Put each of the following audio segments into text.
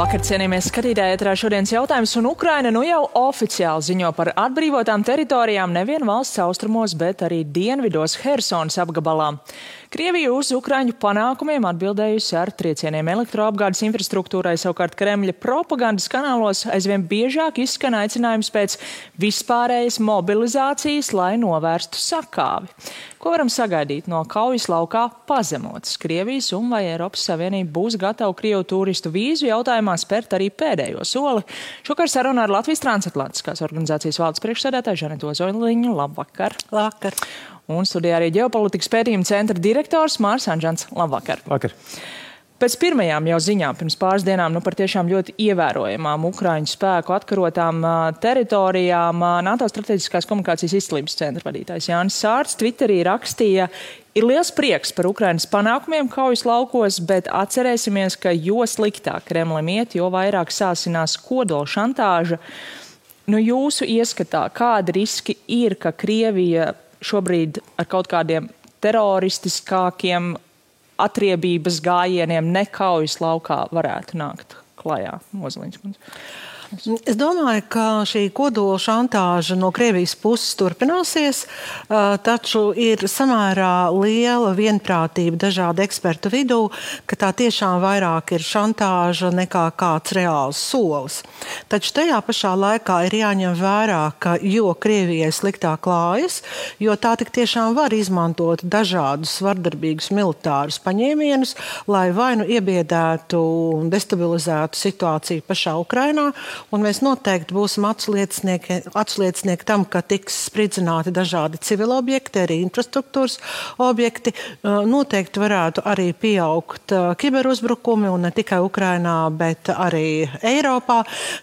Labvakar, cienījamie skatītāji, ēterā šodienas jautājums, un Ukraina nu jau oficiāli ziņo par atbrīvotām teritorijām nevien valsts austrumos, bet arī dienvidos Hersonas apgabalā. Krievija uz Ukraiņu panākumiem atbildējusi ar triecieniem elektroapgādes infrastruktūrai, savukārt Kremļa propagandas kanālos aizvien biežāk izskan aicinājums pēc vispārējas mobilizācijas, lai novērstu sakāvi. Ko varam sagaidīt no kaujas laukā pazemotas Krievijas, un vai Eiropas Savienība būs gatava Krievu turistu vīzu jautājumā spērt arī pēdējo soli? Šokar saruna ar Latvijas transatlantiskās organizācijas valdes priekšsēdētāju Žanetu Ozoliņu. Labvakar! Labvakar! Un studijā arī ģeopolitikas pētījuma centra direktors Mārs Anžants. Labvakar! Vakar! Pēc pirmajām jau ziņām pirms pāris dienām par tiešām ļoti ievērojamām Ukraiņu spēku atkarotām teritorijām NATO strateģiskās komunikācijas izcilības centra vadītājs Jānis Sārts Twitterī rakstīja: ir liels prieks par Ukrainas panākumiem kaujas laukos, bet atcerēsimies, ka jo sliktāk Kremlim iet, jo vairāk sāsinās kodola šantāža. Jūsu ieskatā, kādi riski ir, ka Krievija šobrīd ar kaut kādiem teroristiskākiem atriebības gājieniem nekaujas laukā varētu nākt klajā? Ozoliņas kundze. Es domāju, ka šī kodola šantāža no Krievijas puses turpināsies, taču ir samērā liela vienprātība dažādu ekspertu vidū, ka tā tiešām vairāk ir šantāža nekā kāds reāls solis. Taču tajā pašā laikā ir jāņem vērā, ka jo Krievijai sliktāk klājas, jo tā tik tiešām var izmantot dažādus vardarbīgus militārus paņēmienus, lai vai nu iebiedētu un destabilizētu situāciju pašā Ukrainā. Un mēs noteikti būsim atsliecinieki tam, ka tiks spridzināti dažādi civili objekti, arī infrastruktūras objekti. Noteikti varētu arī pieaugt kiberuzbrukumi, un ne tikai Ukrainā, bet arī Eiropā.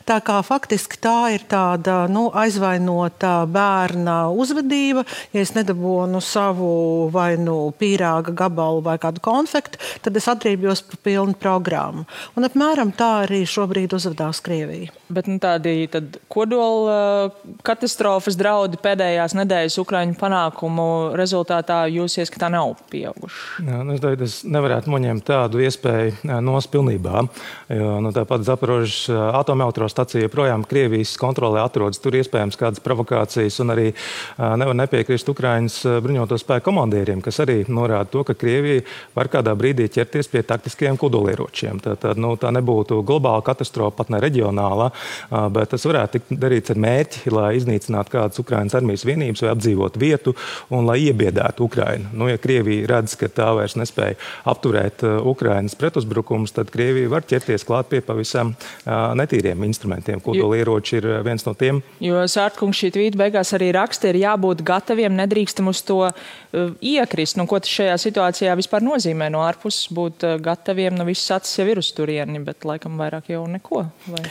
Tā kā faktiski tā ir tāda aizvainota bērna uzvedība. Ja es nedabūnu savu vai pīrāga gabalu vai kādu konfektu, tad es atriebjos par pilnu programmu. Un apmēram tā arī šobrīd uzvedās Krievija. Bet tādi kodola katastrofas draudi pēdējās nedēļas Ukraiņu panākumu rezultātā jūs ieskatā nav pieauguši? Es nevarētu noņemt tādu iespēju nost pilnībā, jo tāpat Zaporožas atomelektrostacija joprojām Krievijas kontrolē atrodas. Tur iespējams kādas provokācijas, un arī nevar nepiekrist Ukraiņas bruņoto spēku komandieriem, kas arī norāda to, ka Krievija var kādā brīdī ķerties pie taktiskiem kodolieročiem. Tā nebūtu globāla katastrofa, pat ne reģionāla, bet tas varētu tikt darīts ar mērķi, lai iznīcinātu kādas Ukrainas armijas vienības vai apdzīvotu vietu un lai iebiedētu Ukrainu. Ja Krievija redz, ka tā vairs nespēja apturēt Ukrainas pretuzbrukumus, tad Krievija var ķerties klāt pie pavisam netīriem instrumentiem. Kodolieroči ir viens no tiem. Jo Sārtkungs šī tvīta beigās arī raksta, ir jābūt gataviem, nedrīkstam uz to iekrist. Ko tas šajā situācijā vispār nozīmē no ārpuses būt gataviem? Viss acis jau ir uz turieni, bet laikam vairāk jau neko. Vai?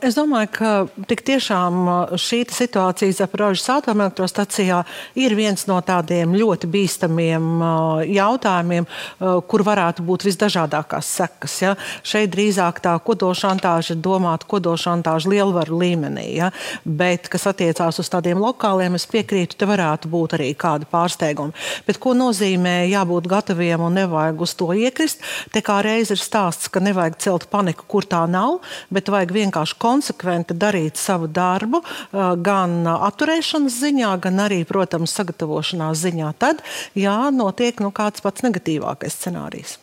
Es domāju, ka tik tiešām šī situācija Zaporožas atomelektrostacijā ir viens no tādiem ļoti bīstamiem jautājumiem, kur varētu būt visdažādākās sekas. Ja? Šeit drīzāk tā kodolšantāža ir domāta kodolšantāža lielvaru līmenī. Ja? Bet, kas attiecās uz tādiem lokāliem, es piekrītu, te varētu būt arī kādi pārsteigumi. Bet ko nozīmē jābūt gataviem un nevajag uz to iekrist? Te kā reiz ir stāsts, ka nevajag celt paniku, kur tā nav, bet vajag vienkārši konsekventi darīt savu darbu, gan atturēšanas ziņā, gan arī, protams, sagatavošanās ziņā. Tad, notiek kāds pats negatīvākais scenārijs.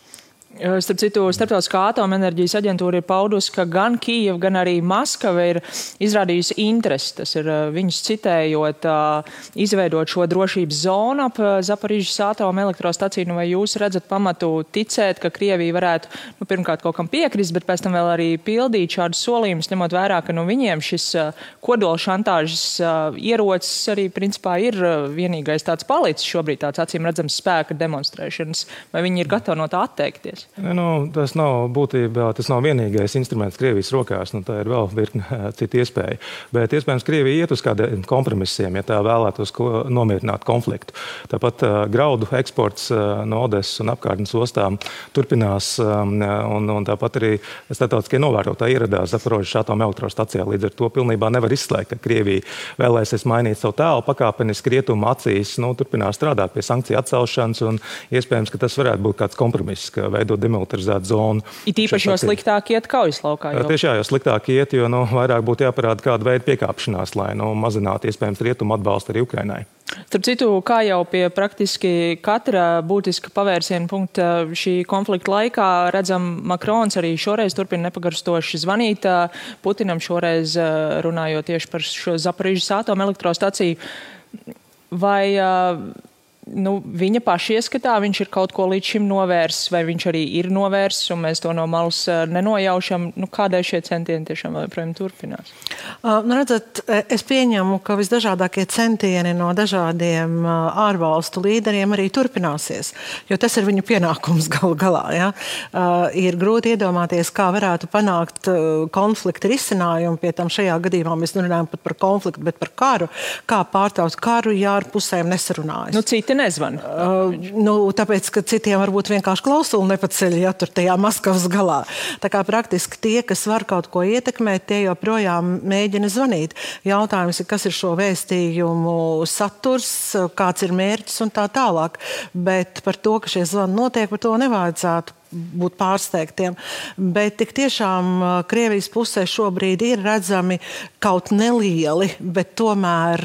Starp citu, Starptautiskā atomenerģijas aģentūra ir paudusi, ka gan Kijeva, gan arī Maskava ir izrādījusi interesi, tas ir viņus citējot, izveidot šo drošības zonu ap Zaporižas atomelektrostaciju. Vai jūs redzat pamatu ticēt, ka Krievija varētu pirmkārt kaut kam piekrist, bet pēc tam vēl arī pildīt šādus solījumus, ņemot vērā, ka viņiem šis kodola šantāžas ierocis arī principā ir vienīgais tāds palicis šobrīd, tāds acīm redzams spēka demonstrēšanas. Vai viņi ir gatavi no tā atteikties? Tas nav būtībā, tas nav vienīgais instruments Krievijas rokās, tā ir vēl virkne citu iespēju. Bet iespējams Krievija iet uz kādiem kompromisiem, ja tā vēlētos nomierināt konfliktu. Tāpat graudu eksports no Odesas un apkārtnes ostām turpinās, un tāpat arī starptautiskie novērotāji ieradās Zaporožas atomelektrostacijā. Līdz ar to pilnībā nevar izslēgt, ka Krievija vēlēsies mainīt savu tēlu pakāpeniski rietumu acīs, turpinās strādāt pie sankciju atcelšanas, un iespējams, ka tas varētu būt kāds kompromiss, ka veidot veidot demilitarizētu zonu. It īpaši jau sliktāk iet kaujas laukā. Tieši jau sliktāk iet, jo vairāk būtu jāparāda kāda veida piekāpšanās, lai mazinātu iespējams rietumu atbalstu arī Ukrainai. Starp citu, kā jau pie praktiski katra būtiska pavērsiena punkta šī konflikta laikā redzam, Makrons arī šoreiz turpina nepagarstoši zvanīt Putinam, šoreiz runājot tieši par šo Zaporižas atomelektrostaciju. Vai viņa paša ieskatā viņš ir kaut ko līdz šim novērsis, vai viņš arī ir novērsis, un mēs to no malas nenojaušam, kādēļ šie centieni tiešām joprojām turpinās? Redzat, es pieņemu, ka visdažādākie centieni no dažādiem ārvalstu līderiem arī turpināsies, jo tas ir viņu pienākums galu galā. Ja? Ir grūti iedomāties, kā varētu panākt konflikta risinājumu, pie tam šajā gadījumā mēs nerunājam pat par konfliktu, bet par karu, kā pārtaut karu, ja ar pusēm nesarunājas. Citi nezvan. Tāpēc, ka citiem varbūt vienkārši klausuli nepaceļ, ja tur tajā Maskavas galā. Tā kā praktiski tie, kas var kaut ko ietekmēt, tie joprojām mēģina zvanīt. Jautājums ir, kas ir šo vēstījumu saturs, kāds ir mērķis un tā tālāk. Bet par to, ka šie zvani notiek, par to nevajadzētu būt pārsteigtiem. Bet tik tiešām Krievijas pusē šobrīd ir redzami kaut nelieli, bet tomēr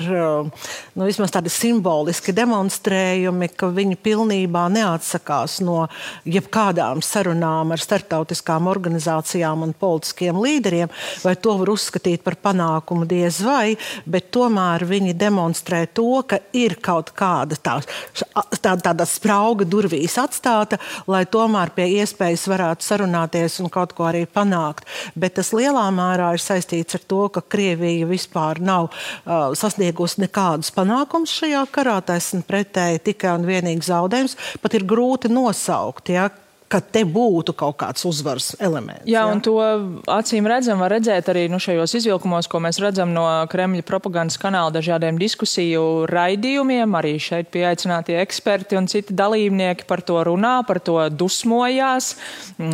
vismaz tādi simboliski demonstrējumi, ka viņi pilnībā neatsakās no jebkādām sarunām ar starptautiskām organizācijām un politiskiem līderiem, vai to var uzskatīt par panākumu diez vai, bet tomēr viņi demonstrē to, ka ir kaut kāda tāda sprauga durvīs atstāta, lai tomēr pie iespējas varētu sarunāties un kaut ko arī panākt. Bet tas lielā mērā ir saistīts ar to, ka Krievija vispār nav sasniegusi nekādus panākumus šajā karā, taisn pretēji tikai un vienīgi zaudējums. Pat ir grūti nosaukt, ja, ka te būtu kaut kāds uzvaras elements. Jā, un to acīm redzam, var redzēt arī šajos izvilkumos, ko mēs redzam no Kremļa propagandas kanāla dažādiem diskusiju raidījumiem. Arī šeit pieaicinātie eksperti un citi dalībnieki par to runā, par to dusmojās.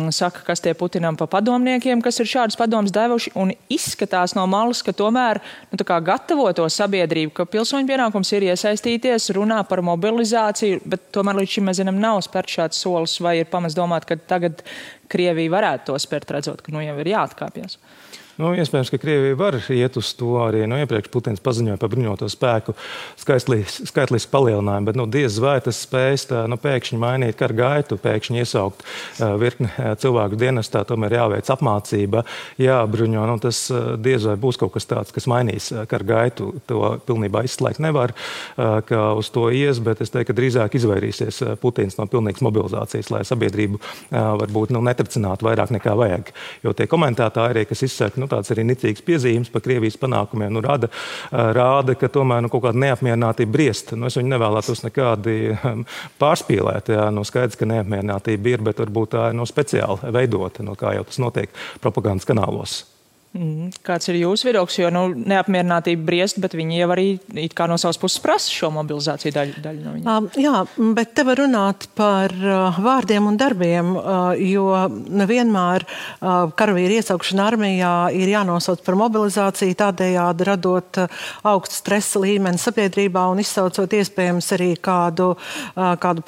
Saka, kas tie Putinam pa padomniekiem, kas ir šādus padomus devuši, un izskatās no malas, ka tomēr gatavo to sabiedrību, ka pilsoņu pienākums ir iesaistīties, runā par mobilizāciju, bet tomēr līdz šim mēs zinām, nav spērt šāds solis, vai ir pamats domāt, ka tagad Krievija varētu to spērt, redzot, ka jau ir jāatkāpjas. Iespējams, ka Krievija var iet uz to arī. Iepriekš Putins paziņoja par bruņoto spēku skaitlisku palielinājumu, bet diez vai tas spējas pēkšņi mainīt karu gaitu, pēkšņi iesaukt virkni cilvēku dienestā, tomēr jāveic apmācība, jābruņo. Tas diez vai būs kaut kas tāds, kas mainīs karu gaitu. To pilnībā izslēgt nevar, ka uz to ies, bet es teiktu, ka drīzāk izvairīsies Putins no pilnīgas mobilizācijas, lai sabiedrību varbūt netricinātu vairāk nekā vajag. Jo tie komentātāji, kas izsaka tāds arī nicīgs piezīmes par Krievijas panākumiem, rāda, ka tomēr kaut kāda neapmierinātība briest. Es viņu nevēlētos nekādi pārspīlēt. Skaidrs, ka neapmierinātība ir, bet varbūt tā ir speciāli veidota, kā jau tas notiek propagandas kanālos. Kāds ir jūsu viedoklis, jo neapmierinātība briest, bet viņi jau arī it kā no savas puses prasa šo mobilizāciju daļu no viņiem. Jā, bet te var runāt par vārdiem un darbiem, jo nevienmēr karavīru iesaukšana armijā ir jānosauc par mobilizāciju, tādējādi radot augstu stresa līmeni sabiedrībā un izsaucot iespējams arī kādu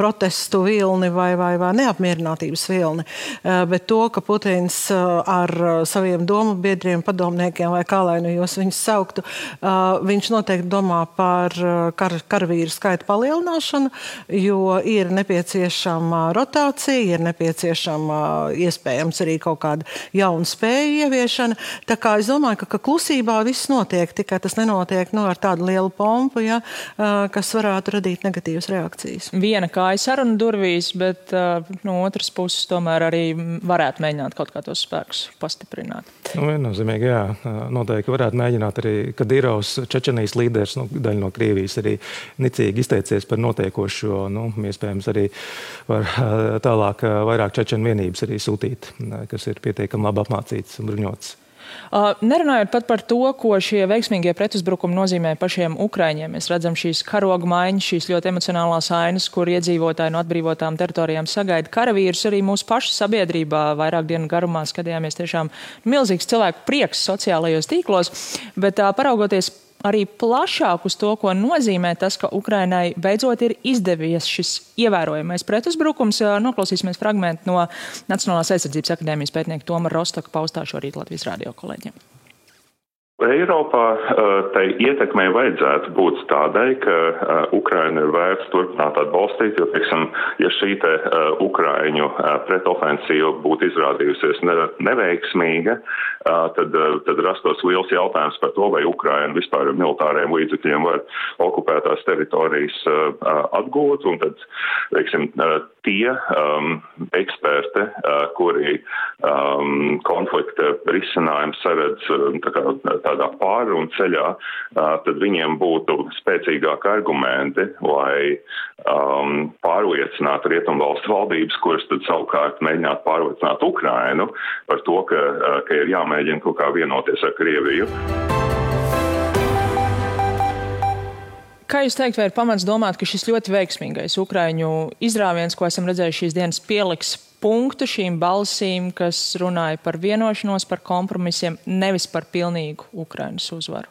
protestu vilni vai neapmierinātības vilni. Bet to, ka Putins ar saviem domu biedriem padomniekiem vai kā lai jūs viņus sauktu, viņš noteikti domā par karavīru skaita palielināšanu, jo ir nepieciešama rotācija, ir nepieciešama iespējams arī kaut kāda jauna spēja ieviešana. Tā kā es domāju, ka klusībā viss notiek, tikai tas nenotiek ar tādu lielu pompu, kas varētu radīt negatīvas reakcijas. Viena kāja saruna durvīs, bet no otras puses tomēr arī varētu mēģināt kaut kā tos spēkus pastiprināt. Viennozīmīgi, jā. Noteikti varētu mēģināt arī Kadirovs, Čečenijas līderis, daļa no Krievijas arī nicīgi izteicies par notiekošo. Iespējams arī var tālāk vairāk čečenu vienības arī sūtīt, kas ir pietiekami labi apmācīts un bruņots. Nerunājot pat par to, ko šie veiksmīgie pretuzbrukumi nozīmē pašiem Ukraiņiem. Mēs redzam šīs karoga maiņas, šīs ļoti emocionālās ainas, kur iedzīvotāji no atbrīvotām teritorijām sagaida karavīrus. Arī mūsu pašu sabiedrībā vairāk dienu garumā skatījāmies tiešām milzīgs cilvēku prieks sociālajos tīklos, bet paraugoties arī plašāk uz to, ko nozīmē tas, ka Ukrainai beidzot ir izdevies šis ievērojamais pretuzbrukums. Noklausīsimies fragmentu no Nacionālās aizsardzības akadēmijas pētnieka Toma Rostoka paustā šorīt Latvijas radio kolēģiem. Eiropā tai ietekmei vajadzētu būt tādai, ka Ukraina ir vērts turpināt atbalstīt, jo, teiksim, ja šī te Ukraiņu pretofensīva būtu izrādījusies neveiksmīga, tad rastos liels jautājums par to, vai Ukraina vispār ar militāriem līdzekļiem var okupētās teritorijas atgūt, un tad, teiksim, tie eksperti, kuri konflikta risinājumu saredz tādā pārrunu ceļā, tad viņiem būtu spēcīgāki argumenti, lai pārliecinātu rietumvalstu valdības, kuras tad savukārt mēģinātu pārliecināt Ukrainu par to, ka ir jāmēģina kaut kā vienoties ar Krieviju. Kā jūs teikt, vai ir pamats domāt, ka šis ļoti veiksmīgais Ukraiņu izrāviens, ko esam redzējuši šīs dienas, pieliks punktu šīm balsīm, kas runāja par vienošanos, par kompromisiem, nevis par pilnīgu Ukrainas uzvaru?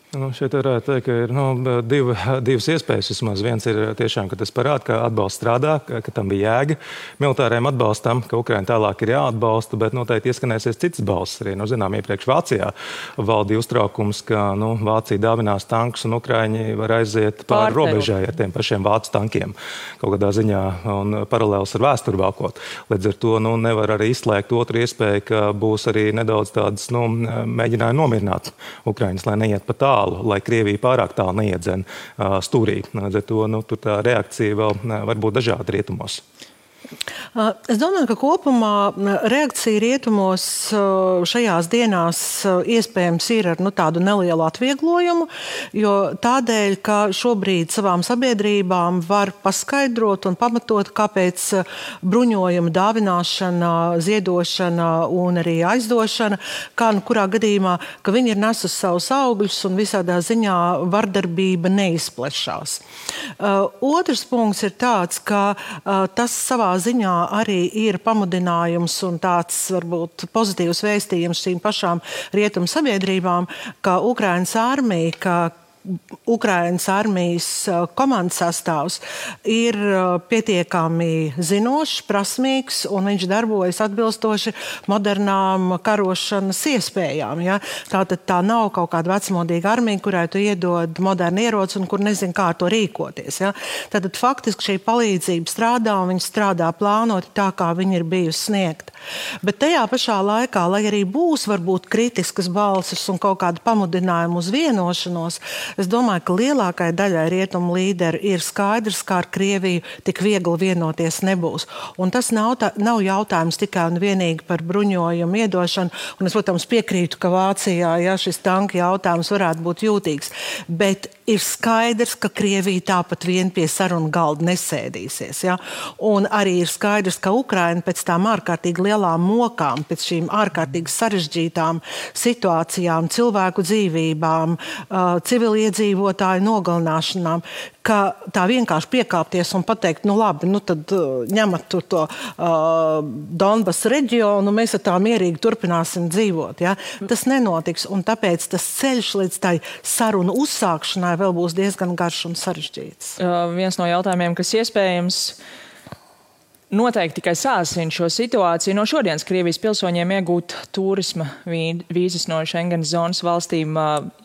Šeit varētu teikt, ka ir divas iespējas vismaz. Viens ir tiešām, ka tas parāda, ka atbalsts strādā, ka tam bija jēga militāriem atbalstam, ka Ukraina tālāk ir jāatbalsta, bet noteikti ieskanēsies citas balsis arī. Zinām, iepriekš Vācijā valdīja uztraukums, ka Vācija dāvinās tankus un Ukraiņi var aiziet pāri robežai ar tiem pašiem vācu tankiem kaut kādā ziņā un paralēls ar vēsturi valkot. Līdz ar to nevar arī izslēgt otru iespēju, ka būs arī nedaudz tādas mēģinājumi nomierināt Ukraiņus, lai neiet pa tālu, lai Krievija pārāk tālu neiedzen stūrī. Līdz ar to tur tā reakcija vēl var būt dažāda rietumos. Es domāju, ka kopumā reakcija rietumos šajās dienās iespējams ir ar tādu nelielu atvieglojumu, jo tādēļ, ka šobrīd savām sabiedrībām var paskaidrot un pamatot, kāpēc bruņojuma dāvināšana, ziedošana un arī aizdošana, kā kurā gadījumā, ka viņi ir nesusi savus augļus un visādā ziņā vardarbība neizplešās. Otrs punkts ir tāds, ka tas savā ziņā arī ir pamudinājums un tāds varbūt pozitīvs vēstījums šīm pašām rietumu sabiedrībām, ka Ukrainas armija, ka Ukrainas armijas komandas sastāvs ir pietiekami zinošs, prasmīgs un viņš darbojas atbilstoši modernām karošanas iespējām. Ja? Tātad tā nav kaut kāda vecmodīga armija, kurai tu iedod modernu ieroci un kur nezin, kā ar to rīkoties. Ja? Tātad faktiski šī palīdzība strādā un viņa strādā plānoti tā, kā viņa ir bijusi sniegta. Bet tajā pašā laikā, lai arī būs varbūt kritiskas balsis un kaut kāda pamudinājuma uz vienošanos, es domāju, ka lielākai daļai rietumu līderi ir skaidrs, ka ar Krieviju tik viegli vienoties nebūs. Un tas nav jautājums tikai un vienīgi par bruņojumu iedošanu. Un es, protams, piekrītu, ka Vācijā šis tanka jautājums varētu būt jūtīgs. Bet ir skaidrs, ka Krievija tāpat vien pie sarunu galda nesēdīsies. Ja? Un arī ir skaidrs, ka Ukraina pēc tām ārkārtīgi lielām mokām, pēc šīm ārkārtīgi sarežģītām situācijām, cilvēku dzīvībām, civiliedzīvotāju nogalināšanām, ka tā vienkārši piekāpties un pateikt, labi, tad ņemat tur to Donbas reģionu, mēs ar tā mierīgi turpināsim dzīvot. Ja? Tas nenotiks, un tāpēc tas ceļš līdz tai sarunu uzsākšanai vēl būs diezgan garš un sarežģīts. Viens no jautājumiem, kas iespējams noteikti tikai sāsina šo situāciju, no šodienas Krievijas pilsoņiem iegūt turisma vīzas no Schengenas zonas valstīm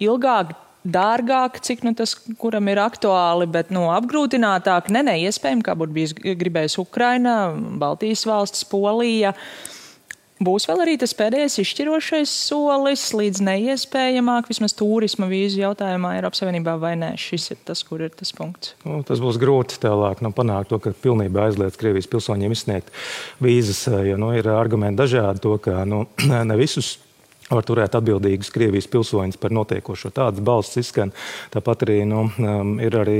ilgāk, dārgāk, cik tas kuram ir aktuāli, bet apgrūtinātāk, neiespējami, kā būtu bijis gribējis Ukraina, Baltijas valstis, Polija. Būs vēl arī tas pēdējais izšķirošais solis līdz neiespējamāk, vismaz turisma vīzu jautājumā Eiropas Savienībā vai nē? Šis ir tas, kur ir tas punkts. Tas būs grūti tālāk panākt to, ka pilnībā aizliedz Krievijas pilsoņiem izsniegt vīzas, jo ir argumenti dažādi to, ka ne visus var turēt atbildīgus Krievijas pilsoņus par notiekošo. Tādas balsis izskan. Tāpat arī ir arī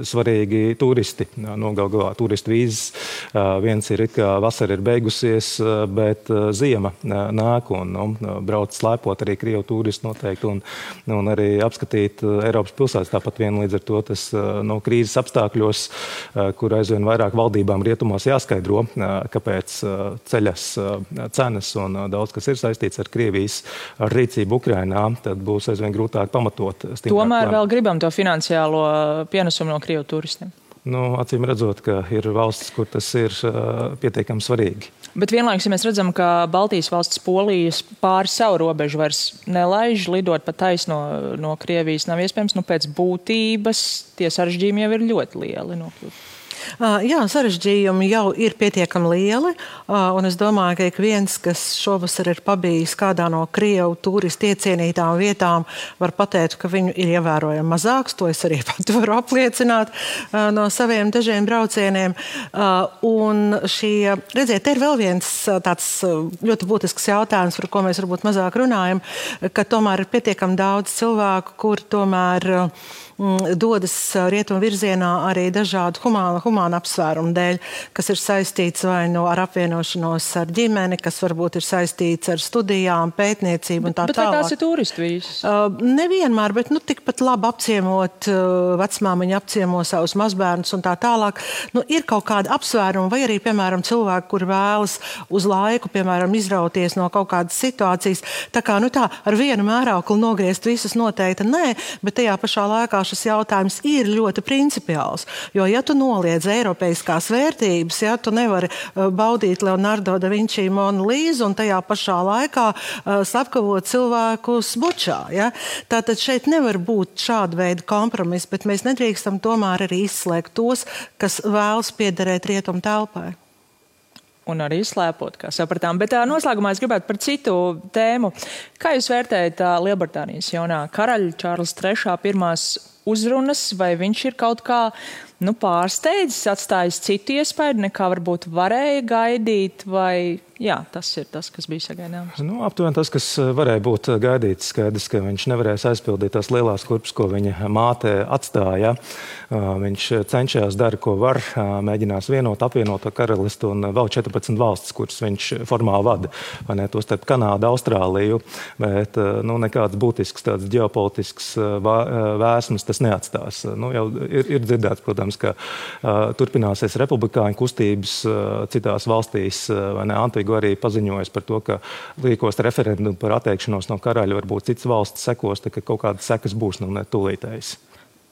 svarīgi turisti. Galā turistu vīzes. Viens ir, kā vasara ir beigusies, bet ziema nāk un brauc slēpot arī Krievu turistu noteikti un arī apskatīt Eiropas pilsētas. Tāpat vien līdz ar to tas krīzes apstākļos, kur aizvien vairāk valdībām rietumos jāskaidro, kāpēc ceļas cenas un daudz kas ir saistīts ar Krievijas saistītas ar rīcību Ukrainā, tad būs aizvien grūtāk pamatot. Tomēr vēl gribam to finansiālo pienesumu no Krievu turistiem. Acīm redzot, ka ir valstis, kur tas ir pietiekami svarīgi. Bet vienlaikus, ja mēs redzam, ka Baltijas valsts Polijas pāri savu robežu vairs nelaiž, lidot pa taisno no Krievijas nav iespējams, pēc būtības tie sarežģījumi jau ir ļoti lieli nokļūt. Jā, sarežģījumi jau ir pietiekami lieli, un es domāju, ka ik viens, kas šovasar ir pabijis kādā no Krievu turistu iecienītām vietām, var pateikt, ka viņu ir ievērojami mazāks. To es arī pat varu apliecināt no saviem dažiem braucieniem. Un redziet, te ir vēl viens tāds ļoti būtisks jautājums, par ko mēs varbūt mazāk runājam, ka tomēr ir pietiekami daudz cilvēku, kur tomēr dodas rietumu virzienā arī dažādu humānu apsvērumu dēļ, kas ir saistīts vai ar apvienošanos ar ģimeni, kas varbūt ir saistīts ar studijām, pētniecību un tā tālāk. Bet vai tās ir turistu vīzas? Nevienmēr, bet tikpat labi apciemot vecmāmiņu, apciemo savus mazbērnus un tā tālāk. Ir kaut kāda apsvēruma vai arī, piemēram, cilvēki, kur vēlas uz laiku, piemēram, izrauties no kaut kādas situācijas. Tā kā, ar vienu mērauklu nogriezt visus noteikti nē, bet tajā pašā laikā šis jautājums ir ļoti principiāls. Jo, ja tu noliedz eiropeiskās vērtības, ja tu nevari baudīt Leonardo da Vinci Monu Līzu un tajā pašā laikā slepkavot cilvēkus Bučā. Ja? Tātad šeit nevar būt šāda veida kompromiss, bet mēs nedrīkstam tomēr arī izslēgt tos, kas vēlas piederēt rietumu telpai. Un arī slēpot, kā sapratām. Bet noslēgumā es gribētu par citu tēmu. Kā jūs vērtējat Lielbritānijas jaunā karaļa Čārlza III pirmās uzrunas, vai viņš ir kaut kā pārsteidzis, atstājis citu iespēju, nekā varbūt varēja gaidīt, vai tas ir tas, kas bija sagaidāms? Aptuveni tas, kas varēja būt gaidīts, skaidrs, ka viņš nevarēs aizpildīt tās lielās kurpes, ko viņa māte atstāja. Viņš cenšas dara, ko var, mēģinās apvienot karalisti un vēl 14 valstis, kuras viņš formāli vada, vai ne, to starp Kanādu, Austrāliju, bet nekāds būtisks tāds ģeopolitisks vēsmas tas neatstās. Jau ir dzirdēts, protams, ka turpināsies republikāņu kustības citās valstīs, vai ne, Antigua arī paziņojas par to, ka rīkos referendumu par atteikšanos no karaļa, varbūt citas valstis sekos, ka kaut kādas sekas būs, ne tūlītējas.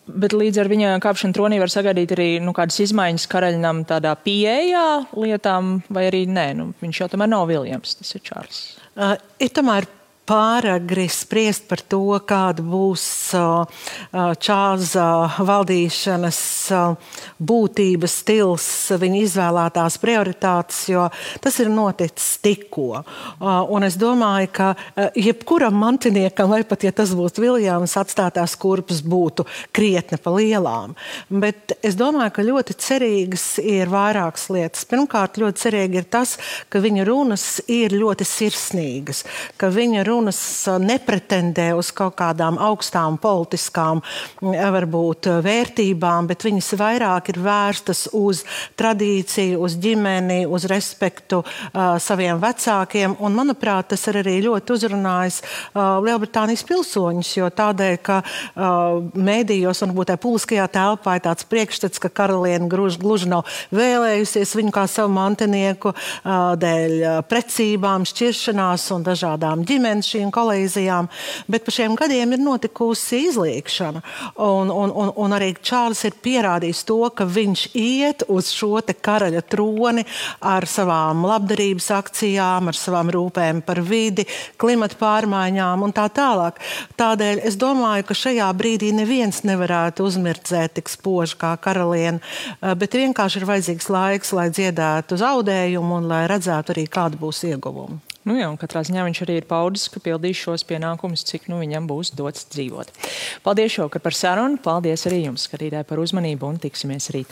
Bet līdz ar viņa kāpšanu tronī var sagaidīt arī kādas izmaiņas karaļnam tādā pieejā lietām, vai arī nē, viņš jau tomēr nav Viljams, tas ir Čārls. Ir tomēr pāragri spriest par to, kāda būs Čārlza valdīšanas būtības stils, viņa izvēlētās prioritātes, jo tas ir noticis tikko. Un es domāju, ka jebkuram mantiniekam, vai pat, ja tas būtu Viljams, atstātās kurpes būtu krietni pa lielām. Bet es domāju, ka ļoti cerīgas ir vairākas lietas. Pirmkārt, ļoti cerīgi ir tas, ka viņa runas ir ļoti sirsnīgas, ka viņa runas nepretendē uz kaut kādām augstām politiskām, varbūt vērtībām, bet viņas vairāk ir vērstas uz tradīciju, uz ģimeni, uz respektu saviem vecākiem. Un, manuprāt, tas ir arī ļoti uzrunājis Lielbritānijas pilsoņus, jo tādēļ, ka mēdījos un varbūt publiskajā telpā ir tāds priekšstats, ka karaliene gluži nav vēlējusies viņu kā savu mantinieku dēļ precībām, šķiršanās un dažādām ģimenes šīm kolīzijām, bet pa šiem gadiem ir notikusi izliekšana. Un arī Čārls ir pierādījis to, ka viņš iet uz šo te karaļa troni ar savām labdarības akcijām, ar savām rūpēm par vidi, klimata pārmaiņām un tā tālāk. Tādēļ es domāju, ka šajā brīdī neviens nevarētu uzmirdzēt tik spoži kā karaliene, bet vienkārši ir vajadzīgs laiks, lai dziedētu zaudējumu un lai redzētu arī, kāda būs ieguvuma. Un katrā ziņā viņš arī ir paudis, ka pildīs šos pienākumus, cik viņam būs dots dzīvot. Paldies šovakar par sarunu, paldies arī jums, skatītāji, par uzmanību un tiksimies rīt.